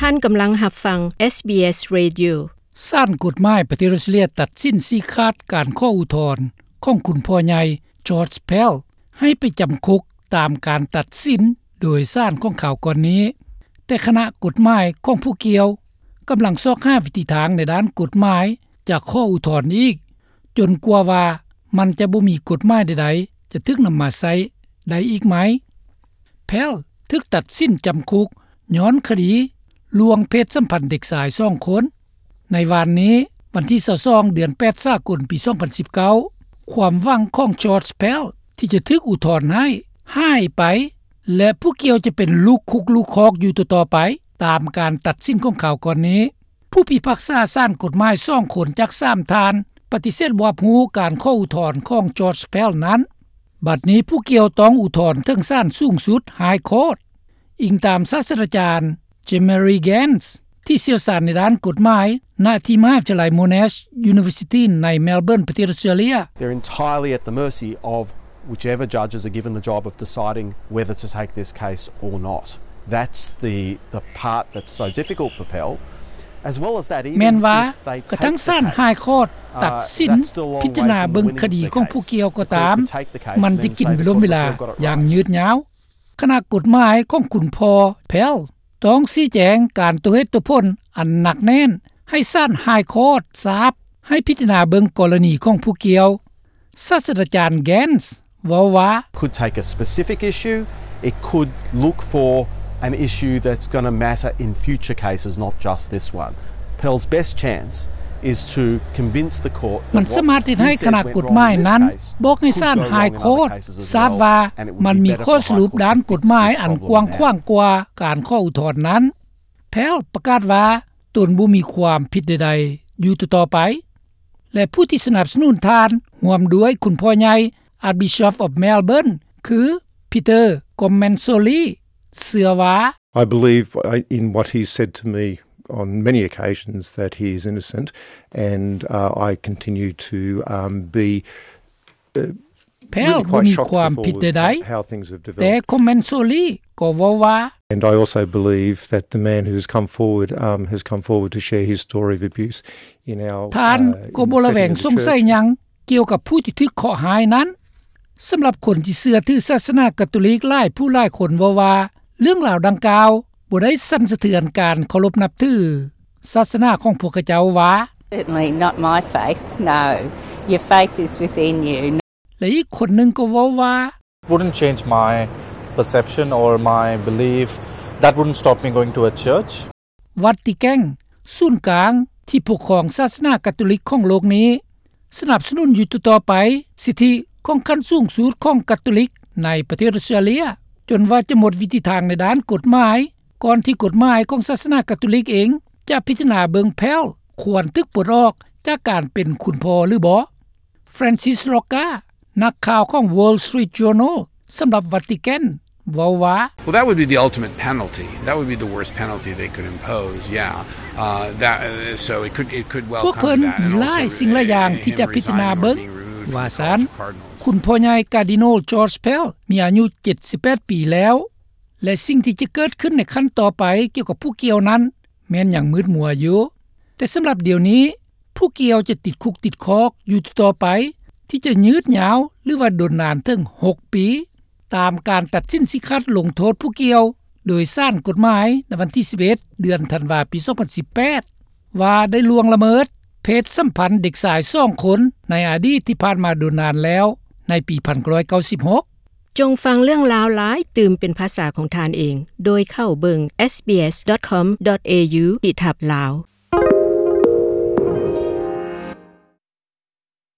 ທ່ານກຳລັງຮັບຟັງ ເອສບີເອສ Radio. ສານກົດໝາຍປະເທດອອສເຕຣເລັຽຕັດສິນຊີ້ຂາດການຂໍອຸທອນຂອງຄຸນພໍ່ໃຫຍ່ George Pell ໃຫ້ໄປຈຳຄຸກຕາມການຕັດສິນໂດຍສານຂອງຄາວກ່ອນນີ້, ແຕ່ຄະນະກົດໝາຍຂອງຜູ້ກ່ຽວກຳລັງຊອກຫາວິທີທາງໃນດ້ານກົດໝາຍຈະຂໍອຸທອນອີກ ຈົນກວ່າວ່າມັນຈະບໍ່ມີກົດໝາຍໃດໆຈະຖືກນຳມາໃຊ້ໄດ້ອີກໃໝ່. Pell ຖືກຕັດສິນຈຳຄຸກຍ້ອນຄະດີລວງເພດສຳພັນເດັກຊາຍສອງຄົນ. ໃນວານນີ້, ວັນທີຊາວສອງ ເດືອນແປດ ສາກົນ ປີສອງພັນສິບເກົ້າ, ຄວາມຫວັງຂອງ George Pell ທີ່ຈະຖືກອຸທອນໃຫ້ຫາຍໄປ ແລະ ຜູ້ກ່ຽວຈະເປັນລູກຄຸກລູກຄອກຢູ່ຕໍ່ໆໄປ ຕາມການຕັດສິນຂອງຄາວກ່ອນນີ້. ຜູ້ພິພາກສາສານກົດໝາຍສອງຄົນຈາກສາມທ່ານປະຕິເສດຮັບຮູ້ການຂໍອຸທອນຂອງ George Pell ນັ້ນ. ບັດນີ້ຜູ້ກ່ຽວຕ້ອງອຸທອນເຖິງສານສູງສຸດ High Court, ອີງຕາມສາດສະດາຈານ Jemery Gance ທີ່ຊ່ຽວຊານໃນດ້ານກົດໝາຍ ນະທີ່ມະຫາວິທະຍາໄລ Monash University ໃນ Melbourne ປະເທດອອສເຕຣເລັຽ. They're entirely at the mercy of whichever judges are given the job of deciding whether to take this case or not. That's the, the part that's so difficult for Pell. As well as that, even ແມ່ນວ່າ if they ກະທັງ take ສານ the case, High Court ຕັດສິນ uh, that's still a long ພິຈາລະນາເບິ່ງຄະດີຂອງຜູ້ກ່ຽວກໍຕາມ, ມັນຈະກິນເວລາຢ່າງຍືດຍາວ. ຄະນະກົດໝາຍຂອງຄຸນພໍ່ Pell ຕ້ອງຊີ້ແຈງການຕົວເຫດຕົວຜົນອັນໜັກແໜ້ນໃຫ້ສານ High Court ຊາບ ໃຫ້ພິຈາລະນາເບິ່ງກໍລະນີຂອງຜູ້ກ່ຽວ. ສາດສະດາຈານ Gance ເວົ້າວ່າ could take a specific issue, it could look for an issue that's gonna matter in future cases, not just this one. Pell's best chance is to convince the court that ມັນສາມາດເຮັດໃຫ້ຄະນະກົດໝາຍນັ້ນບອກໃຫ້ສານ High Court ຊາບວ່າມັນມີຂໍ້ສະຫຼຸບດ້ານກົດໝາຍອັນກວ້າງຂວາງກວ່າການຂໍອຸທອນນັ້ນ. Pell ປະກາດວ່າຕົນບໍ່ມີຄວາມຜິດໃດໆຢູ່ຕໍ່ໆໄປ ແລະ ຜູ້ທີ່ສະໜັບສະໜູນທ່ານ ຮ່ວມດ້ວຍຄຸນພໍ່ໃຫຍ່ Archbishop of Melbourne ຄື Peter Comensoli ເຊື່ອວ່າ I believe, uh, in what he said to me on many occasions that he is innocent, and, uh, I continue to, um, be, uh, Pell ບໍ່ມີຄວາມຜິດໃດໆ, ແຕ່ Comensoli ກໍເວົ້າວ່າ And I also believe that the man who has come forward, um, has come forward to share his story of abuse in our, ທ່ານກໍບໍ່ລະແວງສົງໄສຫຍັງກ່ຽວກັບຜູ້ທີ່ຖືກເຄາະຮ້າຍນັ້ນ. ສຳລັບຄົນທີ່ເຊື່ອຖືສາສະໜາກາໂຕລິກຫຼາຍຜູ້ຫຼາຍຄົນເວົ້າວ່າ ເລື່ອງລາວດັ່ງກ່າວບໍ່ໄດ້ສັ່ນສະເທືອນການເຄົາລົບນັບຖືສາສະໜາຂອງພວກເຂົາເຈົ້າວ່າ Certainly not my faith, no. Your faith is within you. ແລະ ອີກຄົນໜຶ່ງກໍເວົ້າວ່າ Wouldn't change my perception or my belief. That wouldn't stop me going to a church. ວັດຕິແກນ, ສູນກາງທີ່ປົກຄອງສາສະໜາກາໂຕລິກຂອງໂລກນີ້ ສະໜັບສະໜູນຢູ່ຕໍ່ໆໄປສິດທິຂອງຂັ້ນສູງສຸດຂອງກາໂຕລິກໃນປະເທດອອສເຕຣເລັຽ ຈົນວ່າຈະໝົດວິທີທາງໃນດ້ານກົດໝາຍ ກ່ອນທີ່ກົດໝາຍຂອງສາສະໜາກາໂຕລິກເອງຈະພິຈາລະນາເບິ່ງ Pell ຄວນຖືກປົດອອກຈາກການເປັນຄຸນພໍ່ຫຼືບໍ່. Francis Rocca ນັກຂ່າວຂອງ Wall Street Journal ສຳລັບວັດຕິແກນ ເວົ້າວ່າ Well, that would be the ultimate penalty. That would be the worst penalty they could impose, yeah. Uh, that, uh, so it could, it could well come to that. ພວກເພິ່ນມີຫຼາຍສິ່ງຫຼາຍຢ່າງທີ່ຈະພິຈາລະນາເບິ່ງ ວ່າຊັ້ນ. ຄຸນພໍ່ໃຫຍ່ Cardinal George Pell ມີອາຍຸເຈັດສິບແປດປີແລ້ວ ແລະ ສິ່ງທີ່ຈະເກີດຂຶ້ນໃນຂັ້ນຕໍ່ໄປກ່ຽວກັບຜູ້ກ່ຽວນັ້ນ ແມ່ນຍັງມືດມົວຢູ່. ແຕ່ສຳລັບດຽວນີ້ ຜູ້ກ່ຽວຈະຕິດຄຸກຕິດຄອກຢູ່ຕໍ່ໆໄປ ທີ່ຈະຍືດຍາວ ຫຼືວ່າດົນນານເຖິງຫົກປີ ຕາມການຕັດສິນຊີ້ຂາດລົງໂທດຜູ້ກ່ຽວໂດຍສານກົດໝາຍໃນວັນທີສິບເອັດ ເດືອນທັນວາ ປີສອງພັນສິບແປດ ວ່າໄດ້ລ່ວງລະເມີດເພດສຳພັນເດັກຊາຍສອງຄົນໃນອະດີດທີ່ຜ່ານມາດົນນານແລ້ວ ໃນປີໜຶ່ງພັນເກົ້າຮ້ອຍເກົ້າສິບຫົກ. ຈົ່ງຟັງເລື່ອງລາວຫຼາຍຕື່ມເປັນພາສາຂອງທ່ານເອງ ໂດຍເຂົ້າເບິ່ງ SBS dot com dot au ທີ່ທັບລາວ.